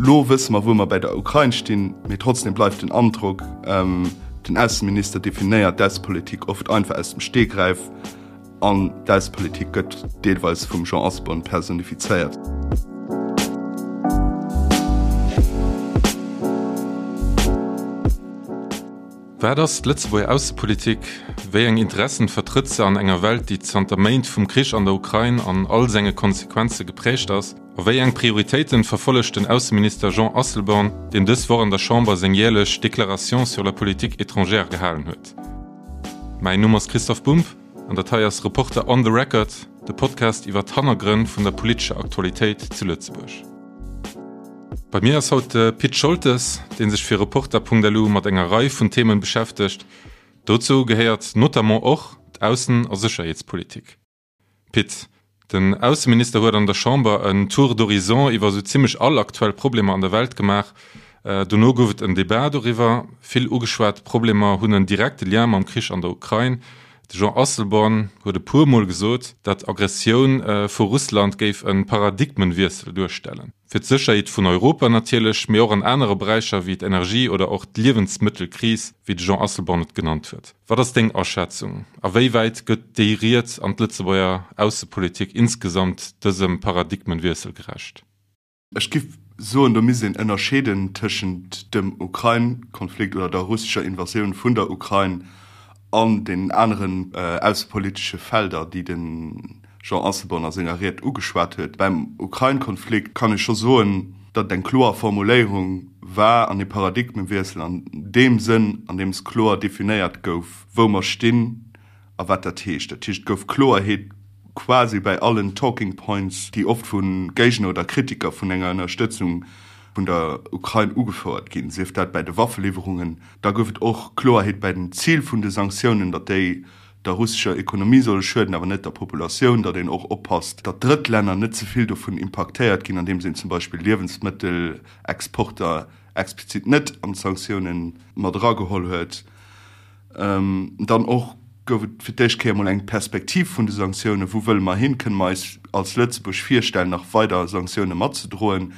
Lo wësse mer, wou mer bäi der Ukrain stinn, mee trotzdem bleift den Androck, den Ausseminister definéiert d'Aussepolitik oft einfach aus dem Stegreif an d'Aussepolitik gëtt deelweis vum Jean Asselborn personifizéiert. Wat ass d'Lëtzebuerger Aussepolitik? Wéi eng Interessen vertrëtt se an enger Welt, déi zanter Méint vum Krich an der Ukrain an all senge Konsequenze geprägt ass? A wéi eng Prioritéiten verfollegt den Ausseminister Jean Asselborn, deen dës Woch an der Chamber seng jäerlech Déclaration sur la politique étrangère gehalen huet? Mäin Numm ass Christoph Bumb an dat hei ass Reporter on the Record, de Podcast iwwer d'Hannergrënn vun der politescher Aktualitéit zu Lëtzebuerg. Bei mir ass haut de Pit Scholtes, dee sech fir Reporter.lu mat enger Rei vun Themen beschäftegt. Dozou gehéiert notamment och d'Aussen a Sécherheetspolitik. Pit, den Ausseminister huet an der Chamber en Tour d'horizon iwwer esou zimmlech all aktuell Problemer an der Welt gemaach. Dono gouf et en Debat doriwwer. Vill ugeschwat Problemer hunn en direkte Lien mam Krich an der Ukrain. De Jean Asselborn huet e puer Mol gesot, datt Aggressioun vu Russland géif e Paradigmenwiessel duerstellen. Fir d'Sécherheet vun Europa natierlech, mee och an anere Beräicher wéi d'Energie oder och d'Liewensmëttelkris, wéi de Jean Asselborn et genannt huet. Wat ass deng Aschätzung? A wéi wäit gëtt déi Ried an d'Lëtzebuerger Aussepolitik insgesamt dësem Paradigmenwiessel gerecht? Ech giff soen, do misst een ënnerscheeden tëschent dem Ukrain-Konflikt oder der russescher Invasioun vun der Ukrain an deenen aneren aussepolitesche Felder, déi de Jean Asselborn a senger Ried ugeschwat huet. Beim Ukrain-Konflikt kann ee scho soen, datt et eng kloer Formuléierung war an ee Paradigmewiessel an deem Sënn, an deem s kloer definéiert gouf, wou mer stinn a wat dat heescht. Dat heescht, et gouf Kloerheet quasi bäi allen Talking Points, déi oft vu Géigner oder Kritiker vun enger Ënnerstëtzung vun der Ukrain ugefouert ginn, sief dat bäi de Waffeliwwerungen. Da gouf et och Kloerheet bäi den Zil vun de Sanktiounen, datt déi der russescher Ekonomie solle schueden, awer net der Populatioun, datt een och oppasst, datt Drëttlänner net ze vill dovun impaktéiert ginn, andeems een zum Beispill Liewensmëttelexporter explizit net an d'Sanktioune mat erageholl huet. Dann och gouf et fir d'éischt Kéier emol eng Perspektiv vun de Sanktiounen, Wou wëlle mer hin? Kënne mer eis als Lëtzebuerg virstellen, nach weider Sanktioune matzedroen?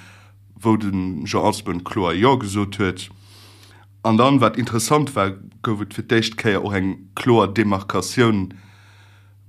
Wou de Jean Asselborn kloer Jo gesot huet. An dann, wat interessant war, gouf et fir d'éischt Kéier och eng kloer Demarkatioun,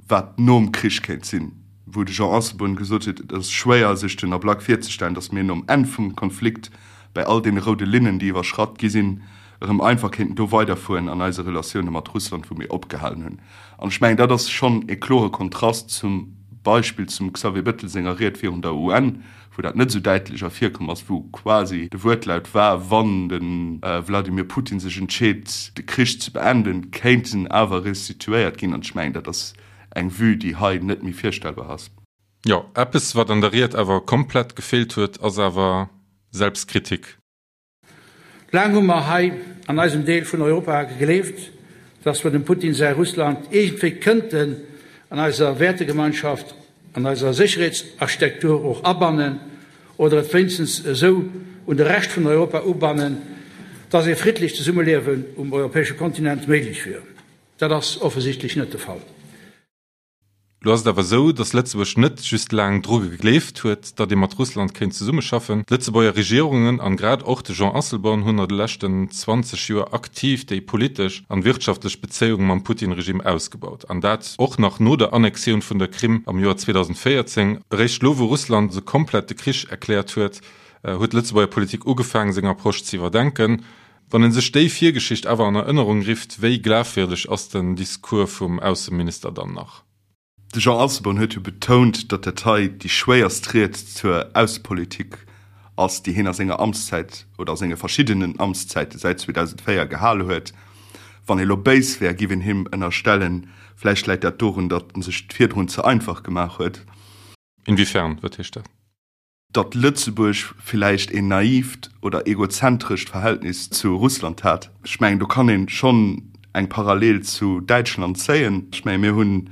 wat nom Krich kéint sinn, wou de Jean Asselborn gesot huet, et ass schwéier sech den Ablack virzestellen, datt mir nom Enn vum Konflikt bäi all deene roude Linnen, déi iwwerschratt gi sinn, erëm einfach kéinten do weiderfueren an eise Relatioune mat Russland, wou mir opgehalen hunn. An ech mengen, dat ass schonn e klore Kontrast zum Beispill zum Xavier Bettel senger Ried virun der UN, wou dat net esou däitlech ervirkomm ass, wou quasi de Wuertlaut war, wann de Wladimir Putin sech entscheet, de Krich ze beenden, kéint en awer restituéiert ginn. An ech mengen, dat ass eng Vue, déi hei net méi virstellbar ass. Jo, eppes, wat an der Ried awer komplett gefeelt huet, ass awer Selbstkritik. Laang hu mer hei an eisem Deel vun Europa gegleeft, dass mer dem Putin säi Russland iergendwéi kënnten an eiser Wäertegemeinschaft, an eiser Sécherheetsarchitektur och abannen oder et wéinstens esou un de Rescht vun Europa ubannen, dass ee friddlecht Zesummeliewen um europäesche Kontinent méiglech wier. Dat ass offensichtlech net de Fall. Lo ass et awer esou, datt Lëtzebuerg net just laang dru gegleeft huet, datt ee mat Russland kéint zesummeschaffen. D'Lëtzebuerger Regierungen an grad och de Jean Asselborn hunn a de leschten 20 Joer aktiv déi politesch an wirtschaftlech Bezéiung mam Putin-Regime ausgebaut. An dat och nach no der Annexioun vun der Krim am Joer 2014. Eréischt lo wou Russland esou komplett de Krich erkläert huet, huet d'Lëtzebuerger Politik ugefaang seng Approche ze iwwerdenken. Wann een sech déi Virgeschicht awer an Erënnerung rifft, wéi glafwierdeg ass den Discours vum Ausseminister dann nach? De Jean Asselborn huet jo betount, datt dat hei déi schwéierst Ried zur Aussepolitik ass, déi hien a senger Amtszäit oder a senge verschiddenen Amtszäite säit 2004 gehal huet. Wann ee lo béis wär, giff een him ënnerstellen, vläicht läit dat dorun, datt en sech et virdrun ze einfach gemaach huet. Inwiefern? Wat heescht dat? Datt Lëtzebuerg villäicht een naivt oder egozentrescht Verhältnis zu Russland hat. Ech mengen, do kann ee schonn eng Parallel zu Däitschland zéien. Ech menge mir hunn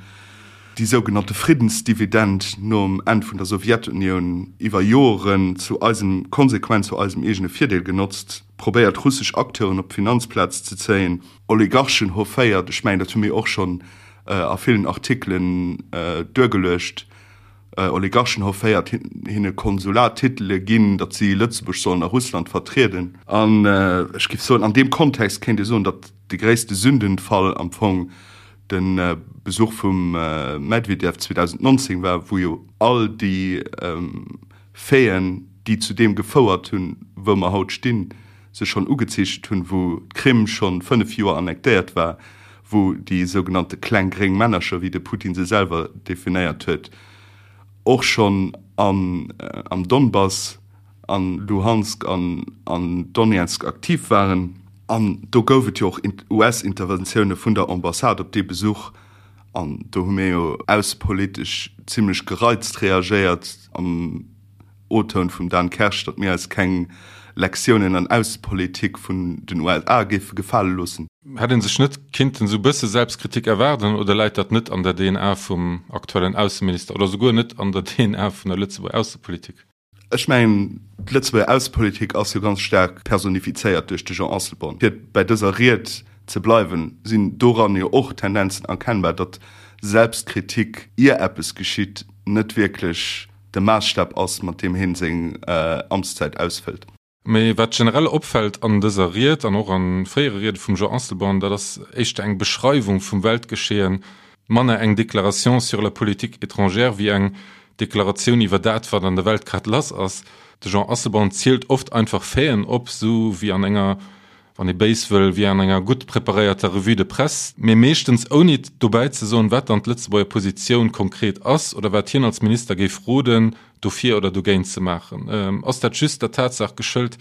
déi sougenannte Friddensdividend nom Enn vun der Sowjetunioun iwwer Joren zu eisem, konsequent zu eisem eegene Virdeel genotzt, probéiert russesch Acteuren op d'Finanzplaz ze zéien, Oligarchen hofféiert. Ech mengen, dat hu mir och schonn a villen Artikelen duergeluecht. Oligarchen hofféiert, hinne Konsulattitele ginn, datt si Lëtzebuerg sollen a Russland vertrieden. An ech géif soen, an deem Kontext kéint ee soen, datt de gréisste Sündenfall am Fong de Besuch vum Medvedev 2019 war, wou jo all déi Faiten, déi zu deem gefouert hunn, wou mer haut stinn, sech schonn ugezeechent hunn, wou d'Krim schonn 5 Joer annektéiert war, wou déi sougenannte kleng gréng Männercher, wéi de Putin se selwer definéiert huet, och schonn am Donbass, a Luhansk an an Donezk aktiv waren. An do gouf et jo och US-Interventioune vun der Ambassade op dee Besuch. An do hu mir jo aussepolitesch zimlech gereizt reagéiert am O-Toun vum Dan Kersch, datt mir eis keng Lektiounen an Aussepolitik vun den USA géife gefale loossen. Hätt ee sech net kinnten esou bësse Selbstkritik erwaarden oder läit dat net an der DNA vum aktuellen Ausseminister oder souguer net an der DNA vun der Lëtzebuerger Aussepolitik? Ech mengen, d'Lëtzebuerger Aussepolitik ass jo ganz staark personifizéiert duerch de Jean Asselborn. Fir bei dëser Ried ze bleiwen, sinn doran jo och Tendenzen erkennbar, datt Selbstkritik, ier eppes geschitt, net wierklech de Maasstap ass, mat deem hien seng Amtszäit ausfëllt. Mee wat generell opfält an dëser Ried an och a fréiere Riede vum Jean Asselborn, dat ass éischter eng Beschreiwung vum Weltgeschehen, manner eng Déclaration sur la politique étrangère wéi eng Deklaratioun iwwer dat, wat an der Welt grad lass ass. De Jean Asselborn zielt oft einfach Faiten op, sou wéi an enger wann ee béis wëll, wéi an enger gutt preparéierter Revue de presse, mee meeschtens ouni dobäi ze soen, wat dann d'Lëtzebuerger Positioun konkret ass oder wat hien als Minister géif roden, dofir oder dogéint ze maachen. Ass dat just der Tatsaach geschëlt,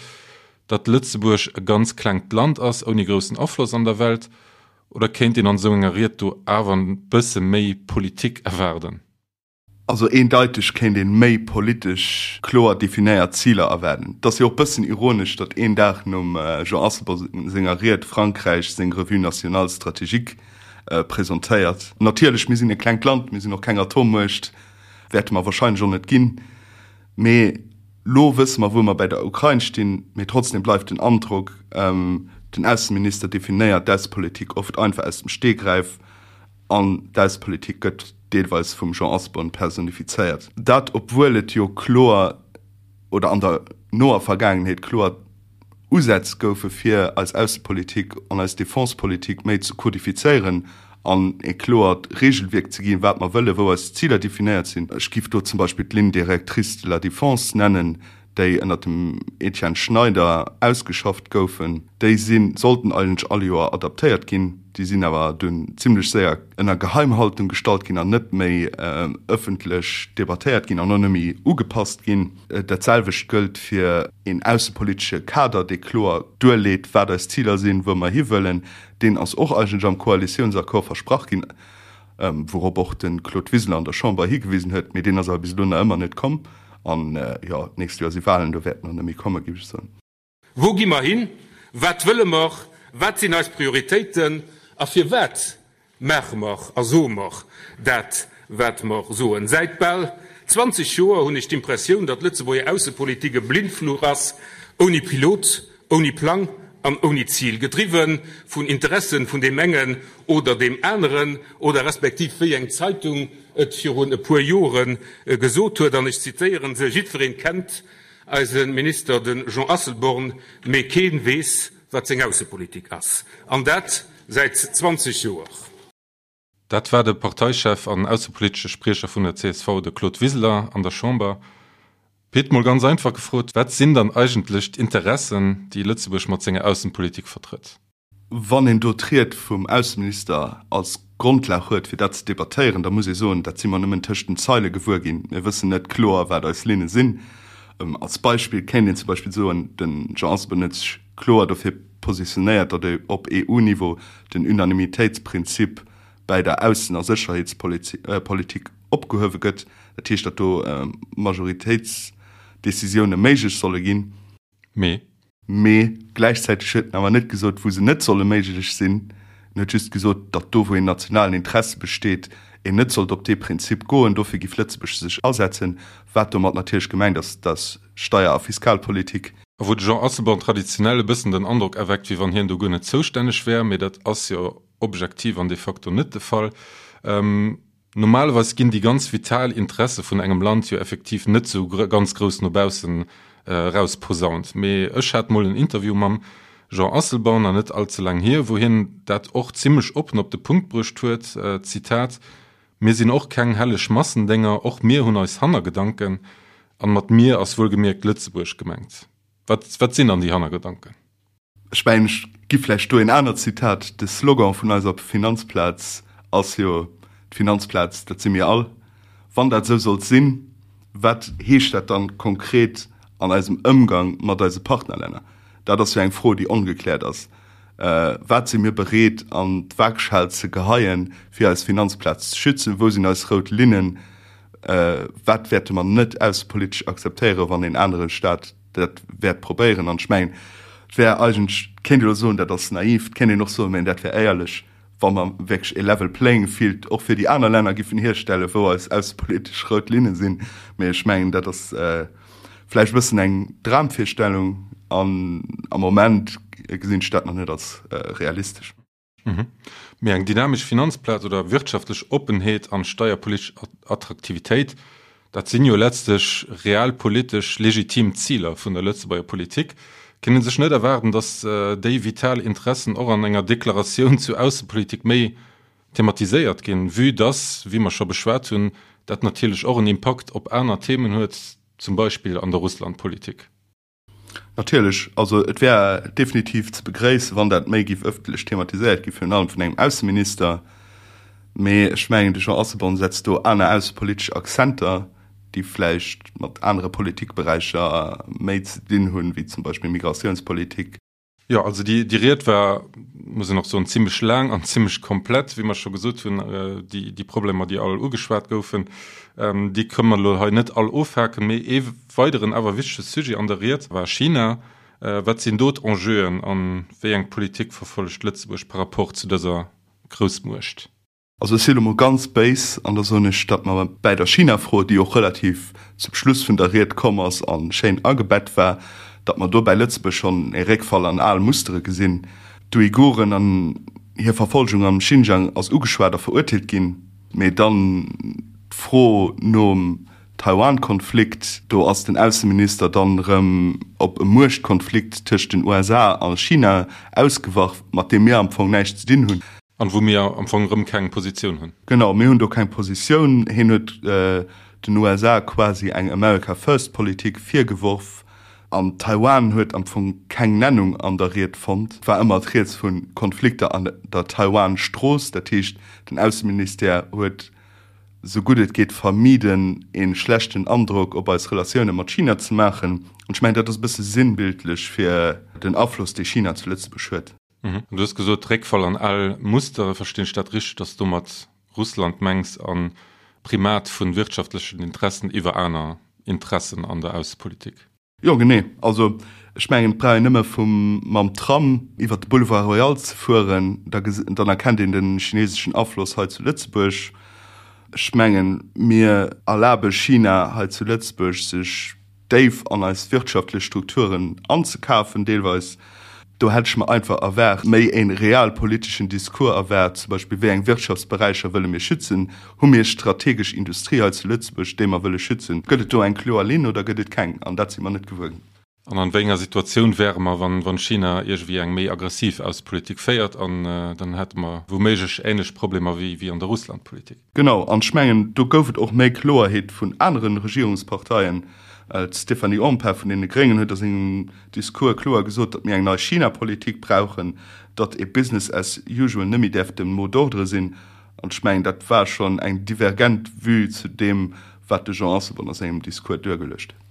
datt Lëtzebuerg e ganz klengt Land ass, ouni groussen Afloss an der Welt, oder kéint een an esou enger Ried do awer e bësse méi Politik erwaarden? Also eendeiteg kéint ee méi politesch kloer definéiert Ziler erwaarden. Et ass jo och bëssen ironesch, datt een Dag nom Jean Asselborn senger Ried Frankräich seng Revue nationale stratégique presentéiert. Natierlech, mir sinn e klengt Land, mir sinn och keng Atommuecht, wäerte mer wahrscheinlech och net ginn. Mee lo wësse mer, wou mer bäi der Ukrain stinn. Mee trotzdem bleift den Androck, den Ausseminister definéiert d'Aussepolitik oft einfach aus dem Stegreif. An d'Aussepolitik gëtt deelweis vum Jean Asselborn personifizéiert. Dat obwuel et jo kloer, oder an der noer Vergaangenheet kloer Usätz goufe fir eis Aussepolitik an eis Defensepolitik méi ze kodifizéieren an e kloert Regelwierk ze ginn, wat mer wëllen, wou eis Ziler definéiert sinn. Ech giff do zum Beispill d'Ligne directrice de la défense nennen, déi ënnert dem Etienne Schneider ausgeschafft goufen, déi si sollten eigentlech all Joer adaptéiert ginn, déi sinn awer dunn zimlech séier ënner Geheimhaltung gestallt ginn an net méi ëffentlech debattéiert ginn an och net méi ugepasst ginn. Dat selwecht gëllt fir een aussepolitesche Kader, dee kloer duerleet, wat eis Ziler sinn, wou mer hiwëllen. Deen ass och eigentlech am Koalitiounsaccord versprach ginn, wourop och de Claude Wiseler an der Chamber higewisen huet, mee deen ass awer bis elo nach ëmmer net komm. An jo, d'nächst Joer si Wahlen, do wäert en och net méi kommen, géif ech soen. Wou gi mer hin? Wat wëlle mer? Wat sinn eis Prioritéiten? A firwat maache mer a soe mer dat, wat mer soen? Säit bal 20 Joer hunn ech d'Impressioun, datt d'Lëtzebuerger Aussepolitik e Blindfluch ass, ouni Pilot, ouni Plang an ouni Zil, gedriwwe vun Interessen vun deem engen oder deem aneren, oder respektiv wéi eng Zeitung et virun e puer Jore gesot huet, an ech zitéieren se, Jiddwereen kennt eise Minister, de Jean Asselborn, mee kee weess, wat seng Aussepolitik ass. An dat säit 20 Joer. Dat war de Parteichef an aussepolitesche Spriecher vun der csv, de Claude Wiseler, an der Chamber. Pit, mol ganz einfach gefrot, Wat sinn dann eigentlech d'Interessen, déi Lëtzebuerg mat senger Aussenpolitik vertrëtt? Wann een do d'Ried vum Ausseminister als Grondlag huet, fir dat ze debattéieren, da muss ee soen, dat si mer nëmmen tëscht den Zeile gewuer ginn. Mir wëssen net kloer, wat eis Linne sinn. Als Beispill kéint een zum Beispill soen, de Jean Asselborn huet sech kloer dofir positionéiert, datt op EU-Niveau den Unanimitéitsprinzip bäi der Aussen a Sécherheetspolitik opgehuewe gëtt. Dat heescht, datt do Majoritéitsdecisioune méiglech solle ginn. Mee? Mee gläichzäiteg huet en awer net gesot, wou se net solle méiglech sinn. En huet just gesot, datt do, wou een nationalen Interesse besteet, een net sollt op dee Prinzip goen. Dofir giff Lëtzebuerg sech asetzen. Wat domat natierlech gemengt ass, dat ass Steier a Fiskalpolitik. A wou de Jean Asselborn traditionell e bëssen den Androck erweckt, wéi wann hien do guer net zoustänneg wär, mee dat ass jo objektiv an de facto net de Fall. Normalerweis ginn déi ganz vital Interesse vun engem Land jo effektiv net sou ganz grouss no baussen erausposaunt. Mee ech hat mol en Interview mam Jean Asselborn, an net all ze laang hier, wou hien dat och zimmlech oppen op de Punkt bruecht huet, Zitat, Mir sinn och keng helleg Massendénger, och mir hunn eis Hannergedanken. An mat mir ass wuelgemierkt Lëtzebuerg gemengt. Wat, wat sinn dann déi Hannergedanken? Ech mengen, ech gi vläicht do een anert Zitat, De Slogan vun eiser Finanzplaz ass jo, D'Finanzplaz, dat si mir all. Wann dat esou sollt sinn, wat heescht dat dann konkret an eisem Ëmgang mat eise Partnerlänner? Dat ass jo eng Fro, déi ongekläert ass. Wat si mir bereet an d'Waagschal ze geheien, fir eis Finanzplaz ze schützen? Wou sinn eis rout Linnen? Wat wäerte mer net aussepolitesch akzeptéieren, wann een anere Staat dat wäert probéieren? An ech mengen, et wär eigentlech, et kéint ee elo soen, dat ass naiv, et kéint een och soen, mä dat wär éierlech, wa mer wierklech e level playing field och fir déi aner Länner giffen hierstellen, wou eis aussepolitesch rout Linne sinn. Mä ech mengen, dat ass vläicht e bëssen eng Dramvirstellung an am Moment gesinn ech dat nach net als realistesch. Mee eng dynamesch Finanzplaz oder wirtschaftlech Oppenheet an steierpolitesch Attraktivitéit, dat sinn jo letztlech realpolitesch legitim Ziler vun der Lëtzebuerger Politik. Kéint ee sech net erwaarden, datt déi vital Interessen och an enger Deklaratioun zu Aussepolitik méi thematiséiert ginn, vue dass, wéi mer scho beschwat hunn, dat natierlech och en Impakt op aner Themen huet, zum Beispill an der Russlandpolitik? Natierlech, also et wär definitiv ze begréissen, wann dat méi géif ëffentlech thematiséiert gi virun allem vun engem Ausseminister. Mee ech mengen, de Jean Asselborn setzt do aner aussepolitesch Akzenter, déi vläicht mat anere Politikberäicher méi ze dinn hunn, wéi zum Beispill Migratiounspolitik. Jo, also déi, déi Ried war, muss een och soen, zimlech laang an zimlech komplett, wéi mer scho gesot hunn. Déi, déi Problemer, déi all ugeschwat goufen, déi kënnen mer elo hei net all ofhaken. Mee ee weideren awer wichtege Sujet an der Ried war China. Wat sinn do d'Enjeuen a wéi eng Politik verfollegt Lëtzebuerg par rapport zu dëser Groussmuecht? Also ech si lo mol ganz béis an da soen ech, datt mer bäi der China-Fro, déi och relativ zum Schluss vun der Ried komm ass a schéin agebett war, datt mer do bäi Lëtzebuerg schonn e Réckfall an al Mustere gesinn. D'Uiguren an hir Verfolgung am Xinjiang ass ugeschwat a verurteelt ginn, mee dann d'Fro nom Taiwan-Konflikt, do ass den Ausseminister dann erëm op e Muechtkonflikt tëscht den USA a China ausgewach, mat deem mir am Fong näischt ze dinn hunn. An wou mir am Fong erëm keng Positioun hunn. Genau, mir hunn do keng Positioun. Hien huet den USA quasi eng America First Politik virgeworf. An Taiwan huet am Fong keng Nennung an der Ried fonnt. Et war ëmmer d'Rieds vu Konflikter an der Taiwan-Strooss. Dat heescht, den Ausseministère huet esou gutt et geet vermiden, ee schlechten Androck op eis Relatioune mat China ze maachen. An ech mengen, dat ass e bësse sinnbildlech fir den Afloss, dee China zu Lëtzebuerg huet. Du hues gesot, Réckfall an al Mustere. Verstinn ech dat richteg, datt s du domat Russland mengs an Primat vu wirtschaftlechen Interessen iwwer aner Interessen an der Aussepolitik? Jo, genee. Also ech mengen, et brauch een nëmme vum mam Tram iwwer de Boulevard Royal ze fueren, da dann erkennt een de chineseschen Afloss hei zu Lëtzebuerg. Ech mengen, mir erlabe China hei zu Lëtzebuerg, sech déif an eis wirtschaftlech Strukturen anzekafen, deelweis. Do hätt ech mer einfach erwaart, méi e realpoliteschen Discours erwaart, zum Beispill, wéi eng Wirtschaftsberäicher wëlle mir schützen? Hu mir strategesch Industrie hei zu Lëtzebuerg, déi mer wëlle schützen? Gëtt et do eng kloer Linn oder gëtt et keng? An dat si mer net gewuer ginn. An an wéi enger Situatioun wäre mer, wann China iergendwéi eng méi aggressiv Aussepolitik féiert? An dann hätte mer wouméiglech änlech Problemer wéi an der Russlandpolitik. Genau, an ech mengen, do gouf et och méi Kloerheet vun anere Regierungsparteien. D'Stéphanie Empain vun deene Gréngen huet a sengem Discours kloer gesot, datt mir eng nei China-Politik brauchen, datt ee Business as usual net méi däerf de Mot d'ordre sinn. An ech mengen, dat war schonn eng divergent Vue zu deem, wat de Jean Asselborn a sengem Discours duergeluecht huet.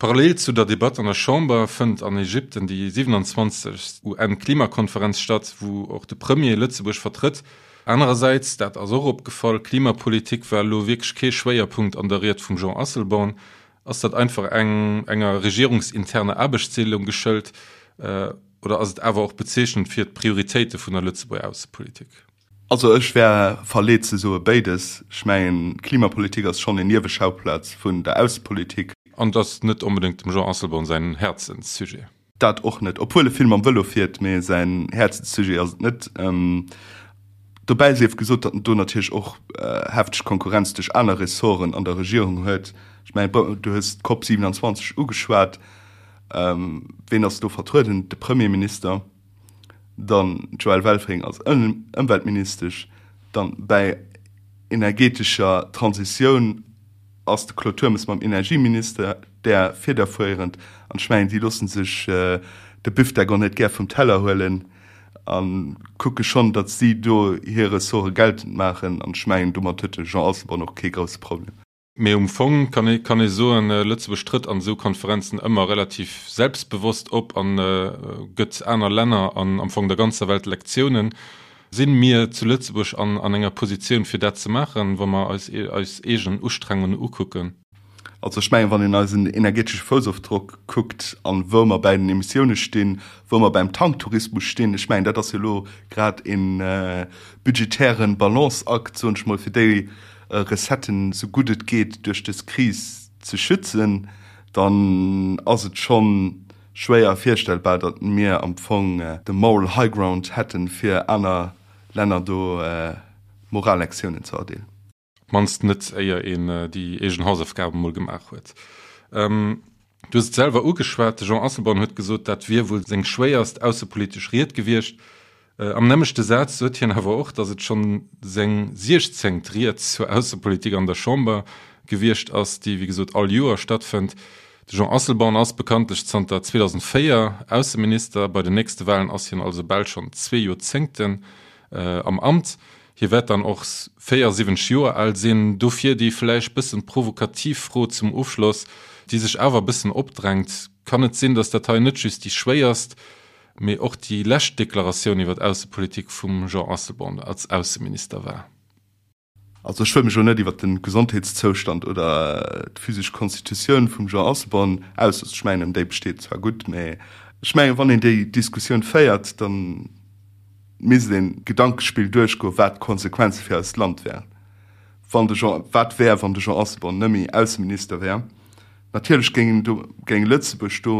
Parallel zu der Debatt an der Chamber fënnt an Ägypten déi 27. UN-Klimakonferenz statt, wou och de Premier Lëtzebuerg vertrëtt. Anerersäits, dat ass och opgefall, Klimapolitik war elo wierklech kee Schwéierpunkt an der Ried vum Jean Asselborn. Ass dat einfach eng enger regierungsinterner Aarbechtsdeelung geschëlt oder ass et awer och bezeechnend fir d'Prioritéite vun der Lëtzebuerger Aussepolitik? Also ech wär verleet ze soe béides. Ech mengen, d'Klimapolitik ass schonn en Nieweschauplatz vun der Aussepolitik. An et ass net onbedéngt dem Jean Asselborn säin Häerzenssujet. Dat och net, obwuel e vill mam Vëlo fiert, mee säin Häerzenssujet ass et net. Dobäi sief gesot, datt en do natierlech och hefteg Konkurrenz duerch aner Ressorten an der Regierung huet. Ech mengen, du hues d'COP 27 ugeschwat. Ween ass do vertrueden? De Premierminister, dann d'Joëlle Welfring als Ëmweltministesch, dann bäi energetescher Transitioun ass de Claude Turmes mam Energieminister där federfuerend. An ech mengen, déi loosse sech de Büfdeck och net gär vum Teller huelen a kucke schonn, datt si do hir Ressorte geltend maachen. An ech mengen, domat huet de Jean Asselborn och kee grousse Problem. Mee um Fong kann ee kann ee soen, Lëtzebuerg trëtt an esou Konferenzen ëmmer relativ selbstbewosst op a gëtt aner Länner an am Fong der ganzer Welt Lektiounen. Sinn mir zu Lëtzebuerg an an enger Positioun fir dat ze maachen, wa mer eis eis eegen Ustrengungen ukucken? Also ech mengen, wann een eisen energetesche Foussofdrock kuckt an wou mer bäi den Emissioune stinn, wou mer beim Tanktourismus stinn, ech mengen dat ass jo elo grad ee budgetären Balanceakt, soen ech mol, fir déi Recetten esou gutt et geet duerch dës Kris ze schützen, dann ass et scho schwéier virstellbar, datt mir am Fong de moral high ground hätten, fir aner Länner do Morallektiounen ze erdeelen. Op d'mannst net, éier een déi eegen Hausaufgaben emol gemaach huet. Du hues et selwer ugeschwat, de Jean Asselborn huet gesot, dat wier wuel seng schwéierst aussepolitesch Ried gewiescht. Am nämmlechte Saz sot hien awer och, datt et schonn seng siechzéngt Ried zur Aussepolitik an der Chamber gewiescht ass, déi wéi gesot all Joer stattfënnt. De Jean Asselborn ass bekanntlech zanter 2004 Ausseminister. Bei den nächste Walen ass hien also bal schonn zwee Joerzéngten am Amt. Hie wäert dann och 74 Joer al sinn. Dofir déi vläicht bëssen provokativ Fro zum Ofschloss, déi sech awer e bëssen opdrängt, Kann et sinn, datt dat hei net just déi schwéierst, mee och déi lescht Deklaratioun iwwer d'Aussepolitik vum Jean Asselborn als Ausseminister war? Also ech wëll mech elo net iwwer de Gesondheetszoustand oder d'physesch Konstitutioun vum Jean Asselborn ausloossen. Ech mengen, déi besteet zwar gutt, mee ech mengen, wann een déi Diskussioun féiert, da misst een d'Gedankespill duerchgoen, wat d'Konsequenze fir eist Land wären, wann de Jean, wat wär, wann de Jean Asselborn net méi Ausseminister wär. Natierlech géing do, géing Lëtzebuerg do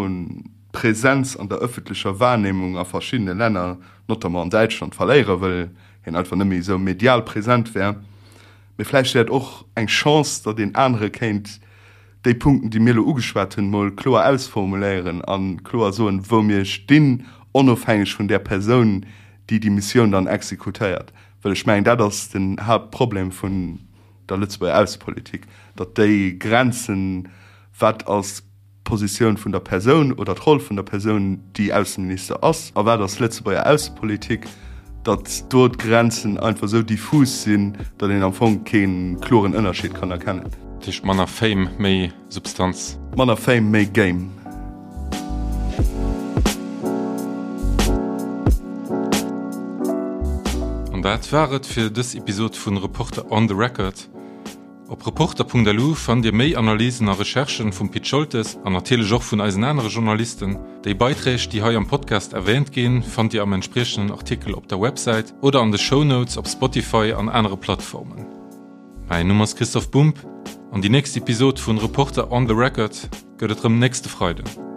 d'Präsenz an der ëffentlecher Wahrnehmung a verschiddene Länner, notamment an Däitschland, verléieren, well hien einfach net méi esou medial present wär. Mee vläicht wär et och eng Chance, datt een anere kéint déi Punkten, déi mir elo ugeschwat hunn, mol kloer ausformuléieren a kloer soen, wou mir stinn, onofhängeg vun där Persoun, déi déi Missioun dann exekutéiert. Well ech mengen, dat ass den Haaptproblem vun der Lëtzebuerger Aussepolitik, datt déi Grenzen, wat ass d'Positioun vun der Persoun oder d'Roll vun der Persoun, déi Ausseminister ass, a wat ass Lëtzebuerger Aussepolitik, datt do d'Grenzen einfach esou diffus sinn, datt een am Fong kee kloren Ënnerscheed kann erkennen. Dat heescht manner Fame, méi Substanz. Manner Fame, méi Game. An dat war et fir dës Episod vun Reporter on the Record. Op Reporter.lu fannt Dir méi Analysen a Recherchen vum Pit Scholtes an natierlech och vun eisen anere Journalisten. Déi Beiträg, déi hei am Podcast erwähnt ginn, fannt Dir am entspriechenden Artikel op der Websäit oder an de Shownotes op Spotify an anere Plattformen. Mäin Numm ass Christoph Bumb an déi nächst Episod vun Reporter on the Record gëtt et rëm nächste Freiden.